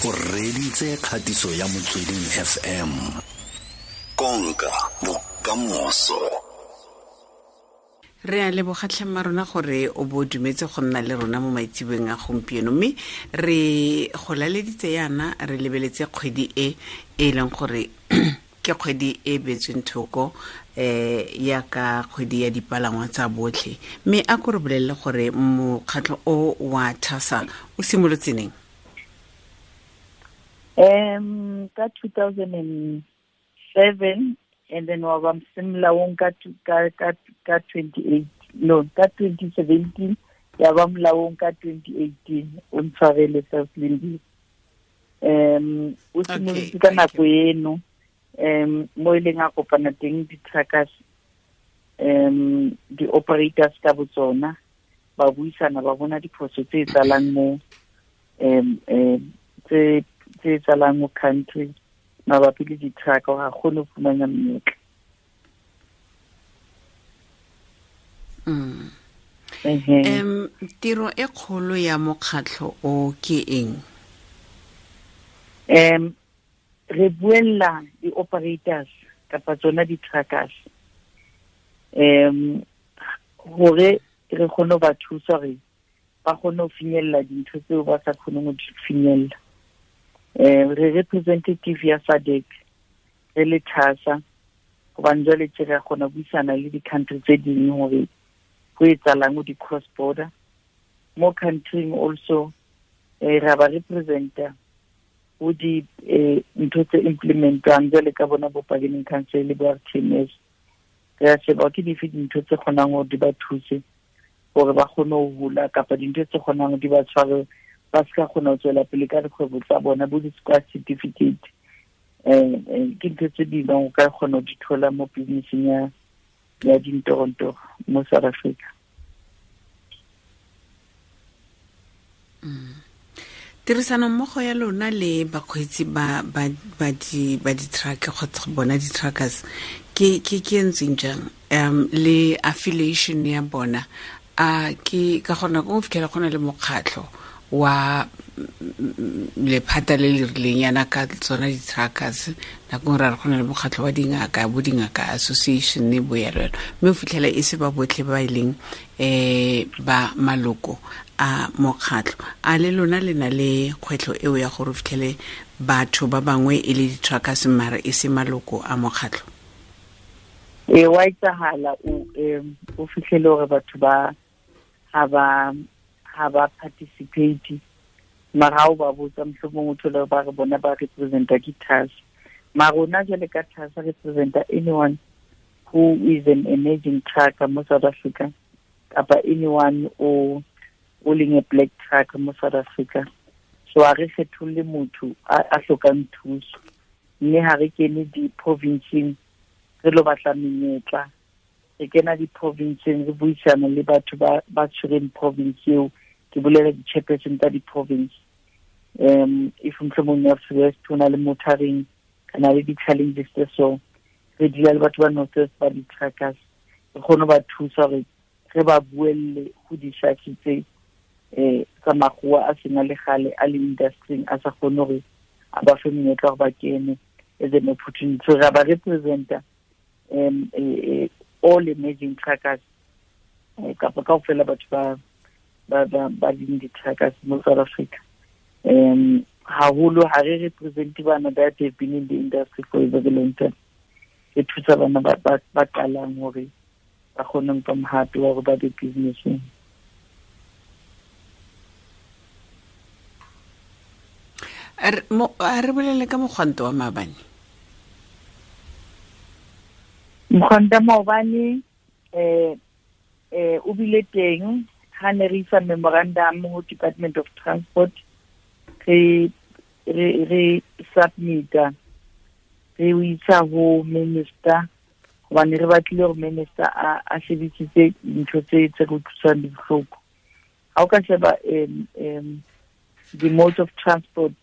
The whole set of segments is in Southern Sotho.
O reditse kgatiso ya Motsweding FM. Konka bokamoso. Re a leboga tlhemma rona gore o bo dumetse go nna le rona mo maitsebeng a gompieno, mme re go laleditse yana re lebeletse kgwedi e e leng gore ke kgwedi e beetsweng thoko ya ka kgwedi ya dipalangwa tsa botlhe. Mme a ko re bolelele gore mokgatlho o wa TASA o simolotse neng? Ka 2007, and then wa ba molaong ka 28, no, ka 2017, ya ba molaong ka 2018. O ntshwarele, Self-Lindi. O simolotse ka nako eno, mo e leng a kopana teng di-truckers, di-operators ka botsona, ba buisana, ba bona diphoso tse tsalang mo tse tsalang mo country mabapi le di-truck, ga kgone go fumana menyetla. Tiro e kgolo ya mokgatlho o ke eng? Re buella di-operators kapa tsona di-truckers, hore re kgone ho ba thusa hore ba kgone ho finyella dintho tseo ba sa kgoneng ho di finyella. Re representative ya SADC re le TASA, hobane jwale tje re kgona ho buisana le di-country tse ding hore ho etsahalang ho di-cross border. Mo country also, ra ba representa ho di ntho tse implementwang jwale ka bona bo bargaining council le bo RTMS. Re a sheba ke dife dintho tse kgonang hore di ba thuse hore ba kgone ho hula, kapa dintho tse kgonang hore di ba tshware ba se ka kgona ho tswela pele ka dikgwebo tsa bona, bo di-squad certificate. Ke ntho tse ding o ka kgona ho di thola mo business-eng ya dintorontoro mo South Africa. Tirisano mmogo ya lona le bakgweetsi ba ba ba di ba di-truck kgotsa bona di-truckers ke ntseng jang, le affiliation ya bona? A ke ka gona go fitlhela go na le mokgatlho wa lephata le le rileng yana ka tsona di-truckers, nako nngwe ra re go na le mokgatlho wa dingaka, bo dingaka association bo yalo yalo, mme o fitlhela e se ba botlhe ba e leng ba maloko a mokgatlho. A le lona le na le kgwetlho eo ya gore o fitlhele batho ba bangwe e le di-truckers mare e se maloko a mokgatlho? E wa etsahala o fitlhele hore batho ba ha ba participate, mara ha o ba botsa mohlomong o thole ba re bona ba representa ke TASA. Mara rona jwale ka TASA representa anyone who is an emerging trucker mo South Africa, kapa anyone o leng a black trucker mo South Africa. So ha re kgetholle motho a hlokang thuso, mme ha re kene di-provinceng re lo batla menyetla, re kena di-provinceng re buisana le batho ba tshwereng province eo, ke bolela di-chairperson tsa di-province. If mohlomong North West ho na le motoring, re na le di-challenges tse so, re dula le batho ba North West ba di-truckers, re kgone ho ba thusa hore re ba buelle ho di-sharks tse tsa makgowa a seng a le kgale a le industry-ing, a sa kgone hore a ba fe monyetla hore ba kene as an opportunity. So ra ba representa all emerging truckers, kapa kaofela batho ba leng di-truckers mo South Africa. Haholo ha re represente bana that have been in the industry for a very long time. Re thusa bana ba qalang hore ba kgone ho nka mohato wa hore ba be business-eng. A re bolele ka mogwanto wa maabane. Mogwanto wa maobane, o bile teng ha ne re isa memorandum ho Department of Transport, re submita, re o isa ho minister, hobane re batlile hore minister a shebisitse dintho tse re utlwisang bohloko. Ha o ka sheba the mode of transport,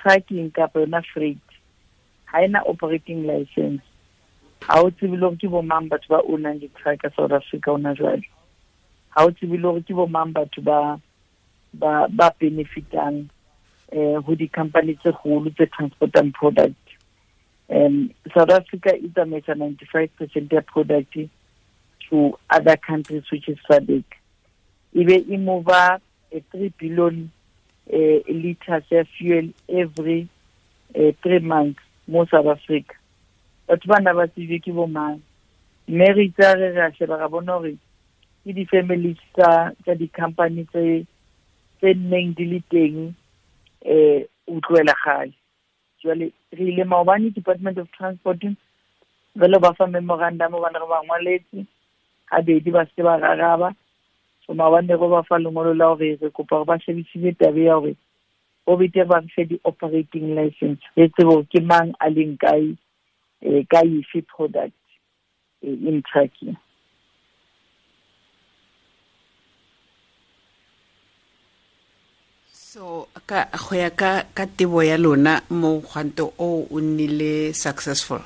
trucking kapa yona freight, ha ena operating license. Ha o tsebe le hore ke bo mang batho ba ownang di-truck South Africa hona jwale. Ha o tsebe le hore ke bo mang batho ba benefitang Ho di-company tse kgolo tse transportang product. South Africa e tsamaisa 95% ya product to other countries, which is SADC. Ebe e move a 3 billion liters ya fuel every 3 months mo South Africa. Batho bana ba tsebe ke bo mang, mme re itse re ra sheba ra bona hore ke di-families tsa di-company tse nneng di le teng utlwela kgale. Jwale re ile maobane Department of Transport re lo ba fa memorandum hobane re ba ngwaletse habedi ba se ba raraba. So maobane re ba fa lengolo la hore re kopa hore ba shebisise taba ya hore ho betere ba re fe di-operating license, re tsebe hore ke mang a leng kae, ka efe product in trucking. So ka go ya ka tebo ya lona mo gwanto o o nnile successful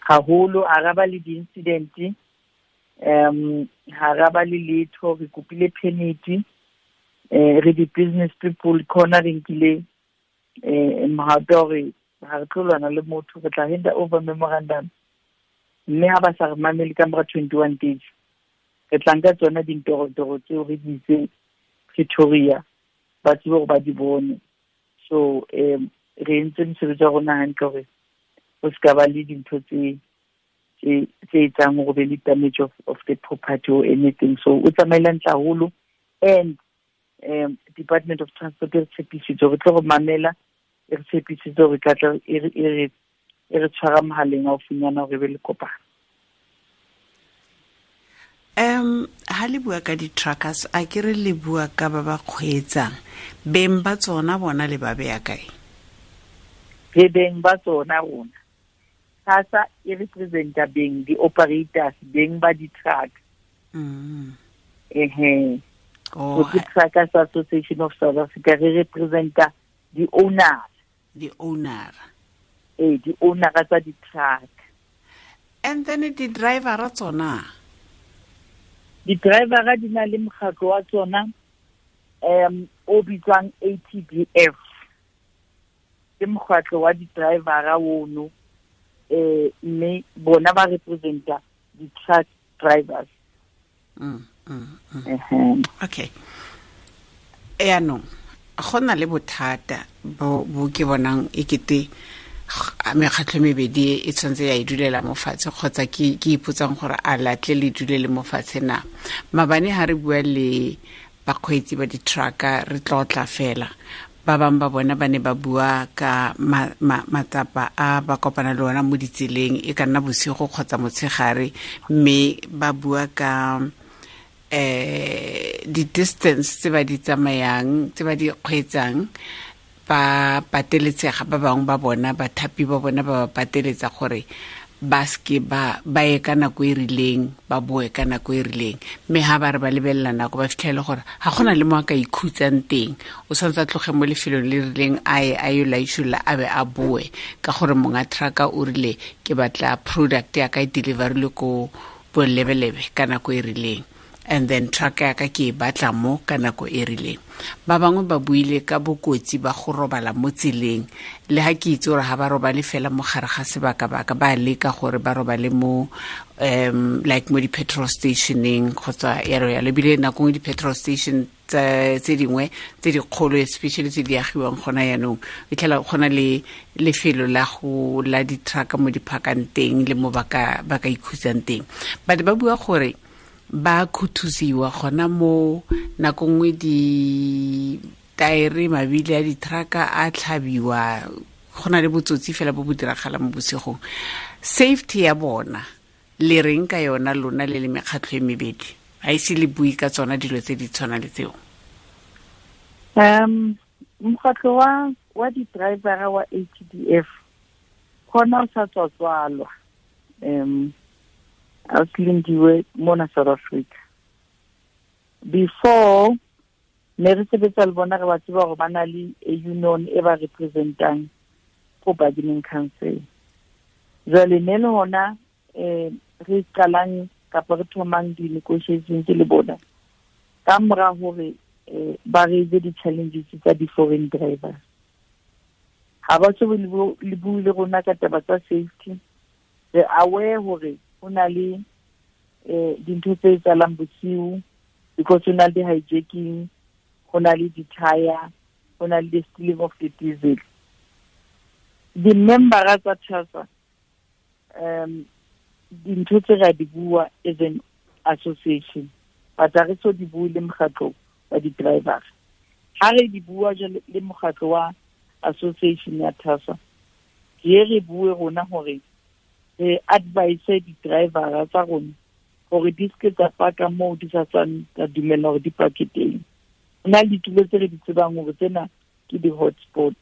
haholo, a ra ba le di-incident, ha ra ba le letho. Re kopile permit, re di-business people khona re nkile mohato hore ha re tlo lwana le motho, re tla hand over memorandum, mme ha ba sa re mamele ka mora 21 days re tla nka tsona dintorotoro tseo re di itse Pretoria ba tsebe hore ba di bone. So re entse mosebetsi wa rona hantle hore ho se ka ba le dintho tse etsang hore be le damage of the property or anything. So o tsamaile hantle haholo, and Department of Transport e re tshepisitse hore tlo re mamela, e re tshepisitse hore tla tla e re tshwara mohaleng haufinyana hore be le kopano. Ha le bua ka di-truckers, a ke re le bua ka ba ba kgweetsang, beng ba tsona bona le ba beya kae? Re beng ba tsona rona. SASA e representa beng di-operators, beng ba di-truck. Oh, so Truckers Association of South Africa re representa di-owners. Di-owner. Di-owner tsa di-truck. And then di-driver tsona? Di-driver di na le mokgatlo wa tsona o bitswang ATDF. Ke mokgatlo wa di-driver ono, mme bona ba representa di-truck drivers. Okay. Yaanong go na le bothata bo ke bonang ekete mekgatlho mebedi e tshwanetse ya e dulela mo fatshe, kgotsa ke ipotsang gore a latle le dulele mo fatshe na. Mabane ha re bua le bakgweetsi ba di-trucker re tlotla fela, ba bangwe ba bona ba ne ba bua ka matsapa a ba kopana le ona mo ditseleng, e ka nna bosigo kgotsa motshegare, mme ba bua ka di-distance tse ba di tsamayang, tse ba di kgweetsang, ba pateletsega ba bangwe ba bona, bathapi ba bona ba ba pateletsa gore ba seke ba ye ka nako e rileng, ba boe ka nako e rileng. Mme ha ba re ba lebelela nako ba fitlhele gore ga gona le mo a ka ikhutsang teng, o tshwanetse a tloge mo lefelong le rileng a ye a yo laisholla a be a boe, ka gore monga trucker o rile ke batla product ya ka e deliverile ko bolebelebe ka nako e rileng, and then truck ya ka ke e batla mo ka nako e rileng. Ba bangwe ba buile ka bokotsi ba go robala mo tseleng, le ha ke itse gore ha ba robale fela mo gare ga sebaka-baka, ba leka gore ba robale mo like mo di-petrol stationeng kgotsa yalo yalo. Ebile nako nngwe di-petrol station tse dingwe tse dikgolo, especially tse di agiwang gona yaanong, e tlhela gona le lefelo la go la di-truck mo di parkang teng le mo ba ka ikhutsang teng. But ba bua gore ba khuthusiwa gona mo nako nngwe di-taere, mabili a di-trucka a tlhabiwa, go na le botsotsi fela bo bo diragala mo bosigong. Safety ya bona le reng ka yona lona le le mekgatlho e mebedi? A ise le bue ka tsona dilo tse di tshwana le tseo? Mokgatlho wa di-driver wa ATDF gona o sa tswa-tswalwa, a Lindiwe mona South Africa. Before ne re sebetsa le bona, re ba tseba hore ba na le a union e ba representang ko bargaining council. Jwale ne le hona re qalang kapa re thomang di-negotiations le bona ka mora hore ba raise di-challenges tsa di-foreign drivers. Ha ba so le bue le rona ka taba tsa safety. Re aware hore ho na le dintho tse etsahalang bosiu, because ho na le di-hijacking, ho na le di-tire, ho na le the stealing of the diesel. Di-membera tsa TASA, dintho tse ra di bua as an association, but ha re so di bue le mokgatlo wa di-driver. Ha re di bua jwale le mokgatlo wa association ya TASA, ke re bue rona hore re advise di-drivera tsa rona hore di seke tsa paka moo di sa tswang tsa dumella hore di pake teng. Ho na le ditulo tse re di tsebang hore tsena ke di-hotspot.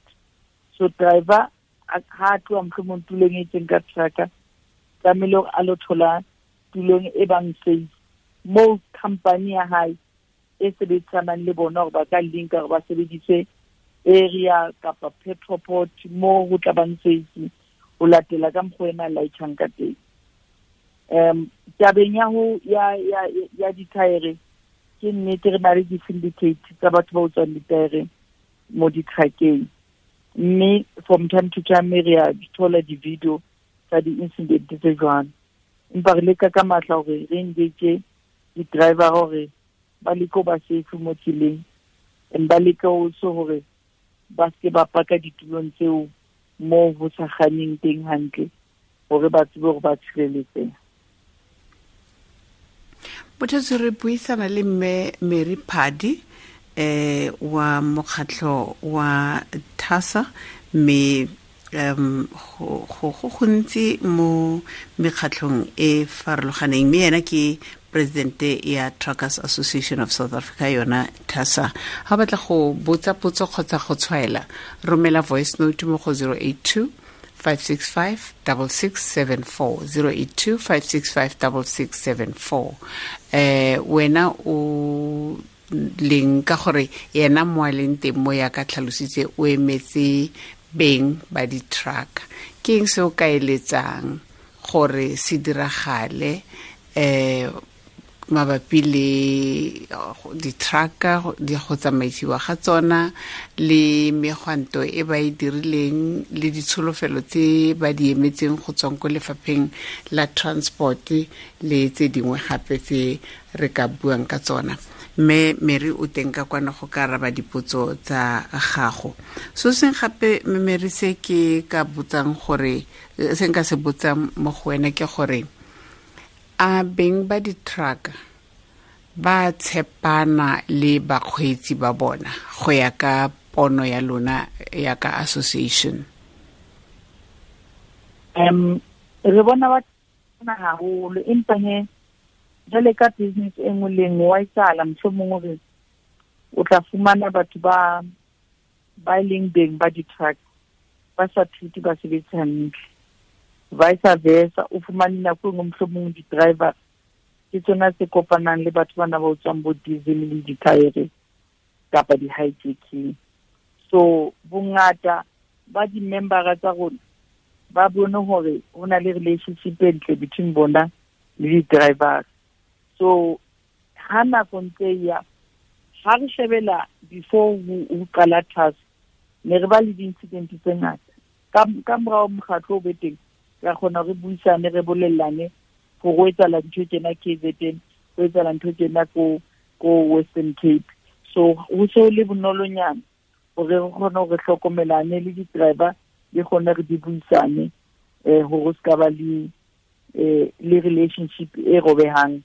So driver ha a tloha mohlomong tulong e itseng ka trucker, tlamehile hore a lo thola tulong e bang safe moo company ya hae e sebedisanang le bona hore ba ka linka hore ba sebedise area kapa petroport moo ho tla bang safe ho latela ka mokgwa ena laitjhang ka teng. Tabeng ya ho ya dithaere, ke nnete re na le di-syndicate tsa batho ba utswang dithaere mo di-truckeng, mme from time to time re a di thola di-video tsa di-incident tse jwalo. Empa re leka ka matla hore re engage di-driver hore ba leke ho ba safe mo tseleng, and ba leke also hore ba seke ba paka ditulong tseo moo ho sa kganneng teng hantle, hore ba tsebe hore ba tshireletsehe. Bothatsi, re buisana le mme Mary Phadi wa mokgatlho wa TASA, mme go gontsi mo mekgatlhong e farologaneng, mme yena ke presidente ya Truckers Association of South Africa, yona TASA. Ha batla go botsa potso kgotsa go tshwaela, romela voice note mo go 082 565 6674, 082 565 6674. Wena o leng ka gore yena mo a leng teng mo ya ka tlhalositse o emetse beng ba di-truck, ke eng se o ka eletsang gore se diragale mabapi le di-trucker, di go tsamaisiwa ga tsona le megwanto e ba e dirileng le ditsholofelo tse ba di emetseng go tswang ko lefapheng la transport le tse dingwe gape tse re ka buang ka tsona? Mme Mary o teng ka kwana go ka araba dipotso tsa gago. So seng gape, mme Mary, se ke ka botsang gore se nka se botsang mo go wena ke gore a beng ba di-truck ba tshepana le bakgweetsi ba bona go ya ka pono ya lona ya ka association? Re bona ba tshepana haholo, empa he jwale ka business e nngwe le nngwe wa etsahala mohlomong hore o tla fumana batho ba e leng beng ba di-truck ba sa treat basebetsi hantle, vice versa. O fumane nako e nngwe mohlomong di-driver ke tsona tse kopanang le batho bana ba utswang bo diesel le dithaere kapa di-hijacking. So bongata ba di-membera tsa rona ba bone hore ho na le relationship e ntle between bona le di-drivers. So ha nako ntse ya ha re shebela before ho qala TASA, ne re ba le di-incident tse ngata. Ka morao mokgatlo o be teng, ra kgona re buisane, re bolellane hore ho etsahala ntho tjena KZN, ho etsahala ntho tjena ko Western Cape. So ho se le bonolonyana hore re kgone hore hlokomelane le di-driver di kgone re di buisane, hore ho ska ba le relationship e robehang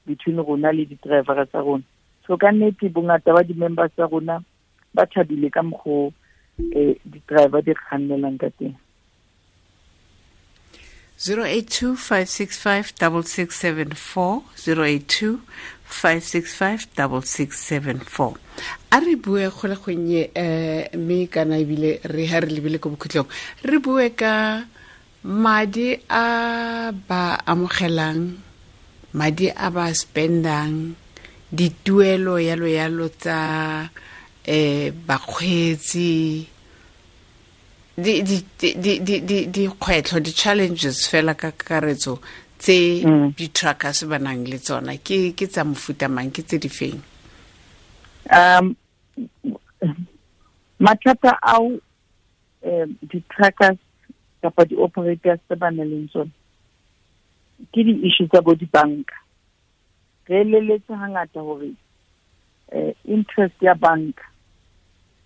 between rona le di-driver tsa rona. So ka nnete bongata ba di-members tsa rona ba thabile ka mokgo di-driver di kgannelang ka teng. 082 565 6674, 082 565 6674. A re bue go le gonnye, mme kana ebile re ha re lebile ko bokhutlong, re bue ka madi a ba amogelang, madi a ba spendang, dituelo yalo yalo tsa bakgweetsi, dikgwetlho, di-challenges fela ka kakaretso tse di-truckers ba nang le tsona ke tsa mofuta mang, ke tse di feng? Mathata ao di-truckers kapa di-operators tse ba nang le tsona ke di-issue tsa bo dibanka. Re eleletse hangata hore interest ya banka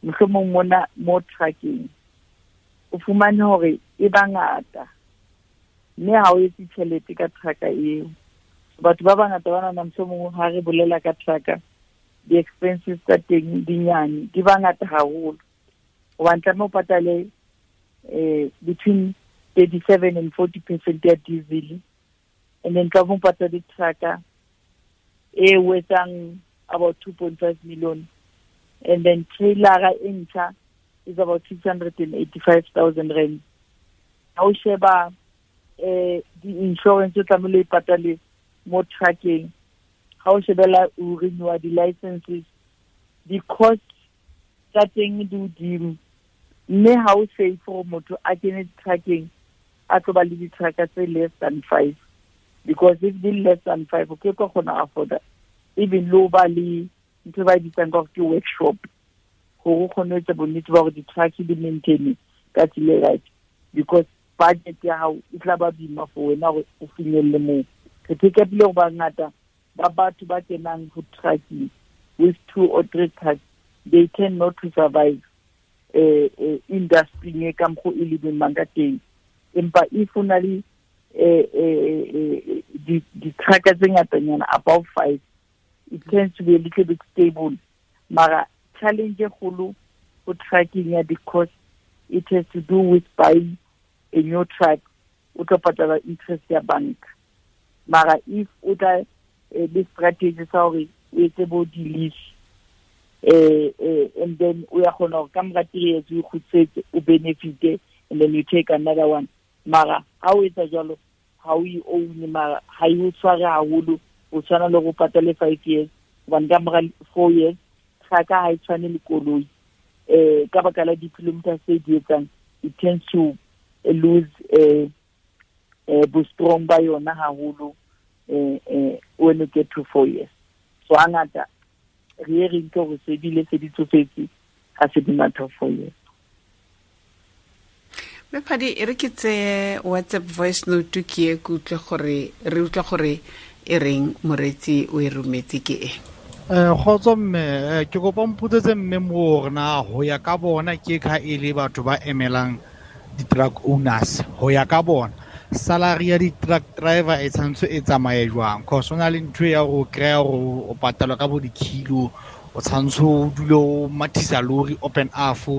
mohlomong mona mo trucking o fumane hore e bangata mme ha o etse tjhelete ka trucker eo. Batho ba bangata ba nahana mohlomong ha re bolela ka trucker di-expenses tsa teng di nyane, di bangata haholo hobane tlameha o patale between 37 and 40% ya diesel, and then tlameha o patale trucker e etsang about 2.5 million, and then trailer e ntjha is about 685,000 rand. Ha o sheba di-insurance o tlamehile o patale mo trucking, ha o shebela o renewa di-licenses, di-cost tsa teng di hodimo, mme ha o safe gore motho a kene trucking a tlo ba le di-trucker tse less than 5, because if di less than 5 o ke ka kgona afforda even lo ba le ntho ba e bitsang ka gore ke workshop gore o kgone ho etsa bonnete ba gore di-truck di maintain ka tsela e right, because budget ya hao e tla ba boima for wena gore o finyelle moo. Re pick up-ile gore bangata ba batho ba kenang ho trucking with 2 or 3 trucks, they tend not to survive industry e ka mokgo e le boimang ka teng. Empa if o na le di-trucker tse ngatanyana above 5, it tends to be a little bit stable. Mara challenge e kgolo ho trucking ya di-cost, it has to do with buying a new truck, o tlo patala interest ya banka. Mara if o tla le strategy sa hore o etse bo di-lease, and then o ya kgona hore ka mora 3 years o kgutletse o benefite, and then you take another one. Mara ha o etsa jwalo ha o e own, mara ha e o tshware haholo, o tshwana le go patale 5 years, hobane ka mora 4 years trucker ha e tshwane le koloi. Ka baka la di-kilometers tse di etsang, it tends to lose bo strong ba yona haholo when you get to 4 years. So hangata re ye re nke hore se bile se di tsofetse ha se di matha 4 years. Mme Phadi, e re ke tseye WhatsApp voice note ke e ke utlwe gore re utlwa gore e reng moreetsi o e rometse ke e. Kgotso mme, ke kopa mpotsetse mme mo hore na ho ya ka bona ke ka e le batho ba emelang di-truck owners, ho ya ka bona salary ya di-truck driver e tshwanetse e tsamaye jwang? Cause ho na le ntho ya hore o kry-a hore o patalwa ka bo di-kilo, o tshwanetse o dule o mathisa lori open half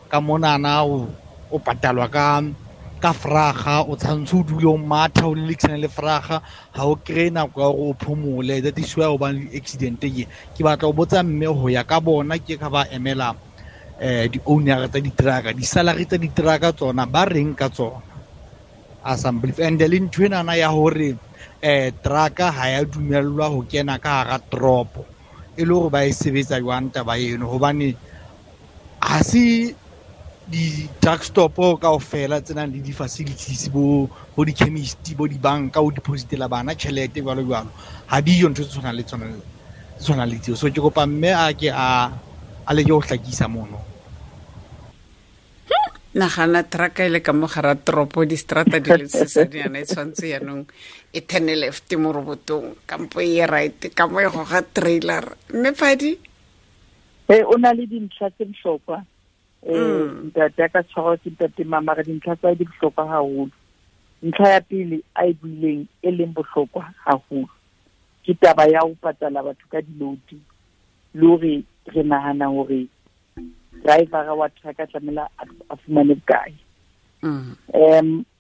ka monana, o patalwa ka fraga, o tshwanetse o dule o matha o lelekisana le fraga, ha o kry-e nako ya hore o phomole. That is why o bang le di-accident. Ke batla ho botsa mme ho ya ka bona ke ka ba emela di-owner tsa di-trucker, di-salary tsa di-trucker tsona ba reng ka tsona? Assembly and le ntho enana ya hore trucker ha ya dumellwa ho kena ka hara toropo, e le hore ba e sebetsa jwang taba eno? Hobane ha se di-truck stop kaofela tse nang le di-facilities, bo di-chemist, bo dibanka, o depositela bana tjhelete jwalo jwalo, ha diyo ntho tse tshwanang le tsona, tse tshwanang le tseo. So ke kopa mme a ke a leke ho hlakisa mono. Nagana trucker e le ka mo gara toropo, distrata di le sesanyana, e tshwanetse yaanong e turn left mo robotong kampo e ye right ka mo e goga trailer. Mme Phadi, o na le dintlha tse bohlokwa. Ntate a ka tshwarwa ke ntate Mama, re dintlha tsa di bohlokwa haholo. Ntlha ya pele a e buileng e leng bohlokwa haholo ke taba ya ho patala batho ka di-load, le hore re nahana hore driver wa trucker tlamehile a fumane bokae.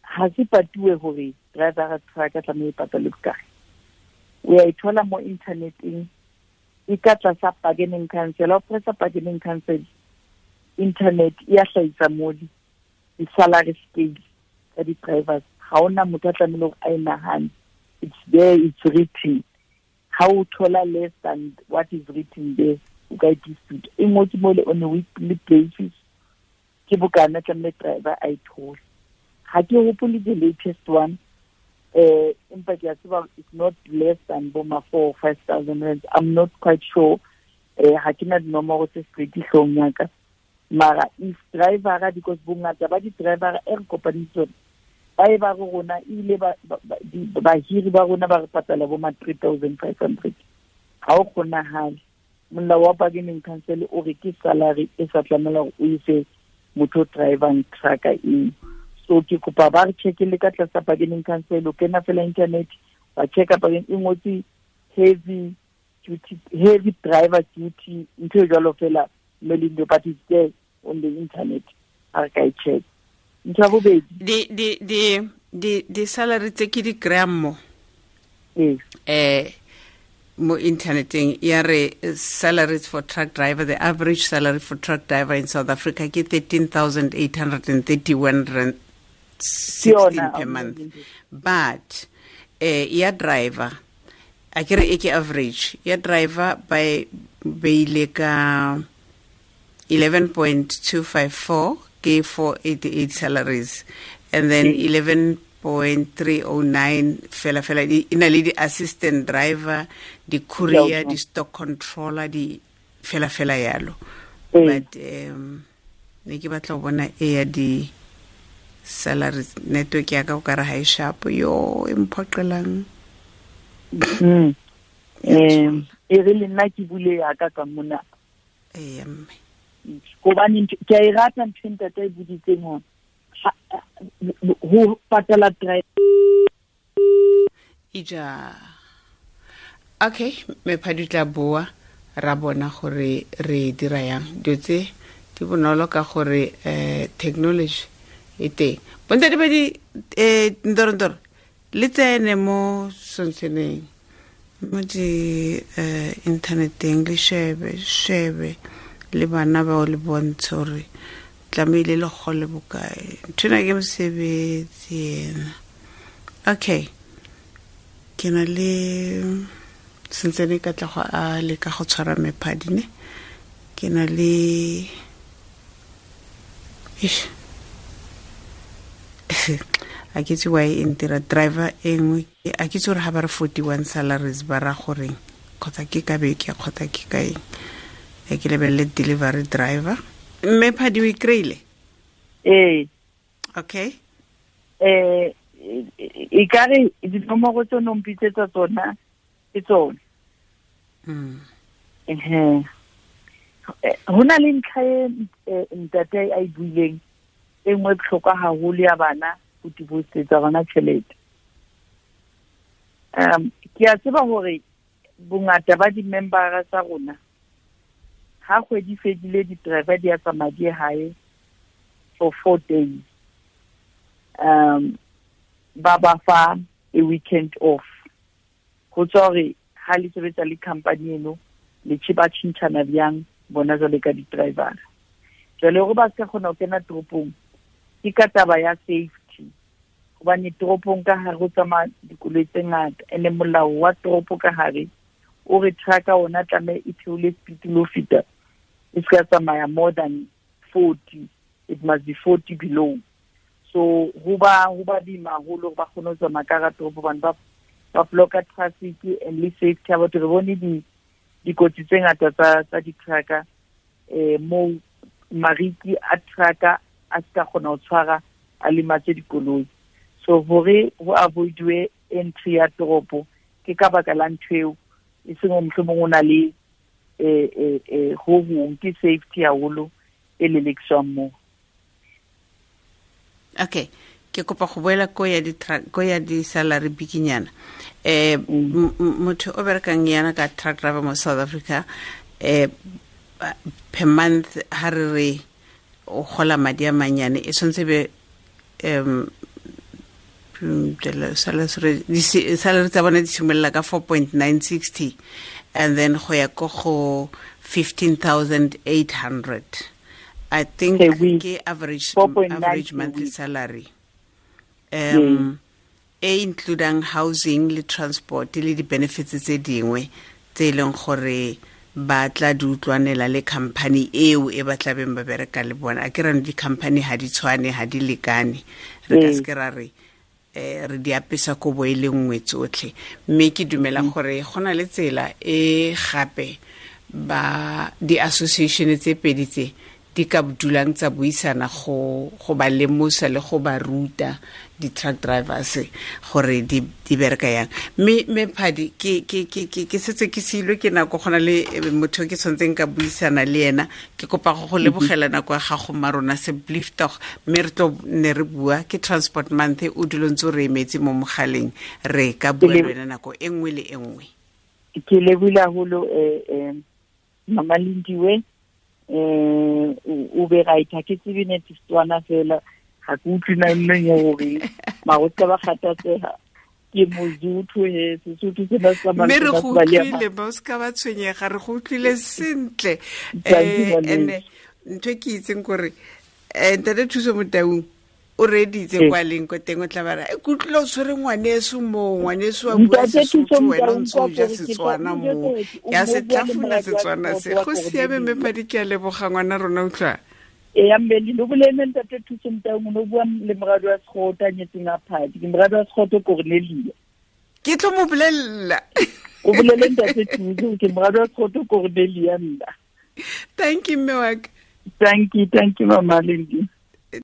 Ha se patuwe hore driver wa trucker tlamehile e patale bokae. O ya e thola mo inthaneteng, e ka tlasa bargaining council. Ha o pressa bargaining council, internet e ya hlahisa mole di-salary scale tsa di-drivers. Ha hona motho a tlamehile hore a e nahane. It's there, it's written. Ha o thola less than what is written there, o ka e dispute. E ngotswe mole on a weekly basis, ke bokana tlamehile driver a e thole. Ha ke hopole the latest one, empa ke a tseba it's not less than bo ma 4 or 5,000 rands. I'm not quite sure. Ha ke na dinomoro tse straight hloohong ya ka, mara if driver, because bongata ba di-driver e re kopaneng tsone ba e ba re rona ebile bahiri ba rona ba re patala bo ma 3500. Ha o kgonahale. Molao wa bargaining council o re ke salary e sa tlamela hore o e fe motho o drivang trucker eo. So ke kopa ba re check-ele ka tlasa bargaining council, o kena fela internet wa checka bargaining e ngotse heavy duty, heavy driver duty, ntho e jwalo fela, Melindo, but it's there on the internet, ha re ka e check. Ntho ya bobedi, Di salary tse ke di kry-ang mo mo interneteng ya re salaries for truck driver, the average salary for truck driver in South Africa ke 13,831 rand 16 per month, but ya driver a ke re e ke average ya driver ba beile ka 11.254 ke 488 salaries, and then 11.309 fela fela e na le di-assistant driver, di-courier, di-stock controller, di fela fela yalo. But ne ke batla go bona e ya di-salaries. Network ya ka o kare ha e sharp yo e mphoqelang. E re le nna ke bule ya ka ka mona. Ee, mme. Hobane ke a e rata ntho e ntate a e boditseng hore ho patala driver. Ija. Okay, me phadi tla boa ra bona gore re dira yang. Dilo tse di bonolo ka gore technology e teng. Bontate ba di ndorondoro le tsene mo sontseneng mo di inthaneteng, le shebe shebe le bana bao le bontshe gore tlamehile le gole bokae. Nthwena ke mosebetsi ena. Okay, ke na le sentsene ka tla go a leka go tshwara mephadi ne ke na le. Eish. A ke itse why e ntira driver e nngwe, a ke itse gore ga ba re 41 salaries ba ra goreng, kgotsa ke ka beke kgotsa ke ka eng. E ke lebelele delivery driver. Mme phadi, o e kry-ile? Ee. Okay. E ka re dinomoro tse o no mpitsetsa tsona ke tsone. Ehe. Ho na le ntlha e ntate a e buileng e nngwe e bohlokwa haholo ya bana ho deposit-etsa bana tjhelete. Ke a tseba hore bongata ba di-member tsa rona ha kgwedi fedile di-driver di a tsamaya di ye hae for 4 days, ba ba fa a weekend off, ho tswa hore ha le sebetsa le company eno le ba tjhentjhana bjang bona jwale ka di-driver. Jwale hore ba ska kgona ho kena toropong ke ka taba ya safety, hobane toropong ka hare ho tsamaya dikoloi tse ngata, ene molao wa toropo ka hare o re trucka ona tlameha e theole speed le ho feta, e ska tsamaya more than 40, it must be 40 below. So ho ba boima haholo hore ba kgone ho tsamaya ka hara toropo hobane ba blocka traffic and le safety ya batho. Re bone di dikotsi tse ngata tsa di-trucker moo mariki a trucker a ska kgona ho tshwara, a lematse dikoloi. So hore ho avoid-we entry ya toropo ke ka baka la ntho eo, e seng hore mohlomong o na le ho hong, ke safety haholo e lelekiswang moo. Okay, ke kopa go boela ko ya di ko ya di salary bikinyana. Motho o berekang yana ka truck driver mo South Africa, per month ha re re o gola madi a manyane, e tshwanetse be salary tsa bone di simolola ka 4.960 and then go ya ko go 15,800, I think. Per week. Ke average 4.9 average per monthly week. salary e includang housing le transport le di-benefits tse dingwe tse e leng gore ba tla di utlwanela le company eo e ba tlabeng ba bereka le bona. A ke rano di-company ha di tshwane, ha di lekane, re ka seke ra re re di apesa kobo e le nngwe tsotlhe. Mme ke dumela gore go na le tsela e gape Ba di-association tse pedi tse di ka dulang tsa buisana go ba lemosa le go ba ruta di-truck drivers gore di bereka yang. Mme Phadi, ke setse ke silwe ke nako, go na le motho ke tshwanetseng ka buisana le ena. Ke kopa go lebogela nako ya gago mma rona se bliftoch, mme re tlo ne re bua ke Transport Month, o dilo ntse o re emetse mo mogaleng, re ka bua le wena nako e nngwe le e nngwe. Ke lebohile haholo, Mama Lindiwe. O be right, ha ke tsebe net Setswana fela, ha ke utlwe na nneng ya hore mara o ska ba kgathatseha, ke Mozuthu he, Sesotho sena se tsamaya Mme re le go batho ba le utlwile, ba o ska ba tshwenyega, re go utlwile sentle. Thank you, Malindi. Ene ntho e ke itseng kore, Ntate Thuso Motaung o reeditse kwa leng ko teng, o tla ba re, ke utlwile o tshwere ngwaneso moo, ngwaneso wa bua Ntate Thuso Sesotho, wena o Motaung ntse o kwa ja gore ke tla Setswana utlwa moo. gore o Ke a mo se bua le tlhafuna moradi wa Setswana se. Sekgowa Go gore siame, mme Bibele. Phadi, ke a leboga ngwana rona, utlwa. Ee, ya mme, le bolele Ntate Thuso Motaung, o no bua le moradi wa Sekgowa a nyetseng a Phadi. Ke moradi wa Sekgowa Cornelia. Ke tlo mo bolella. O bolele Ntate Thuso, ke moradi wa Sekgowa Cornelia nna. Thank you, mme wa ka. Thank you, thank you, Mama Lindi.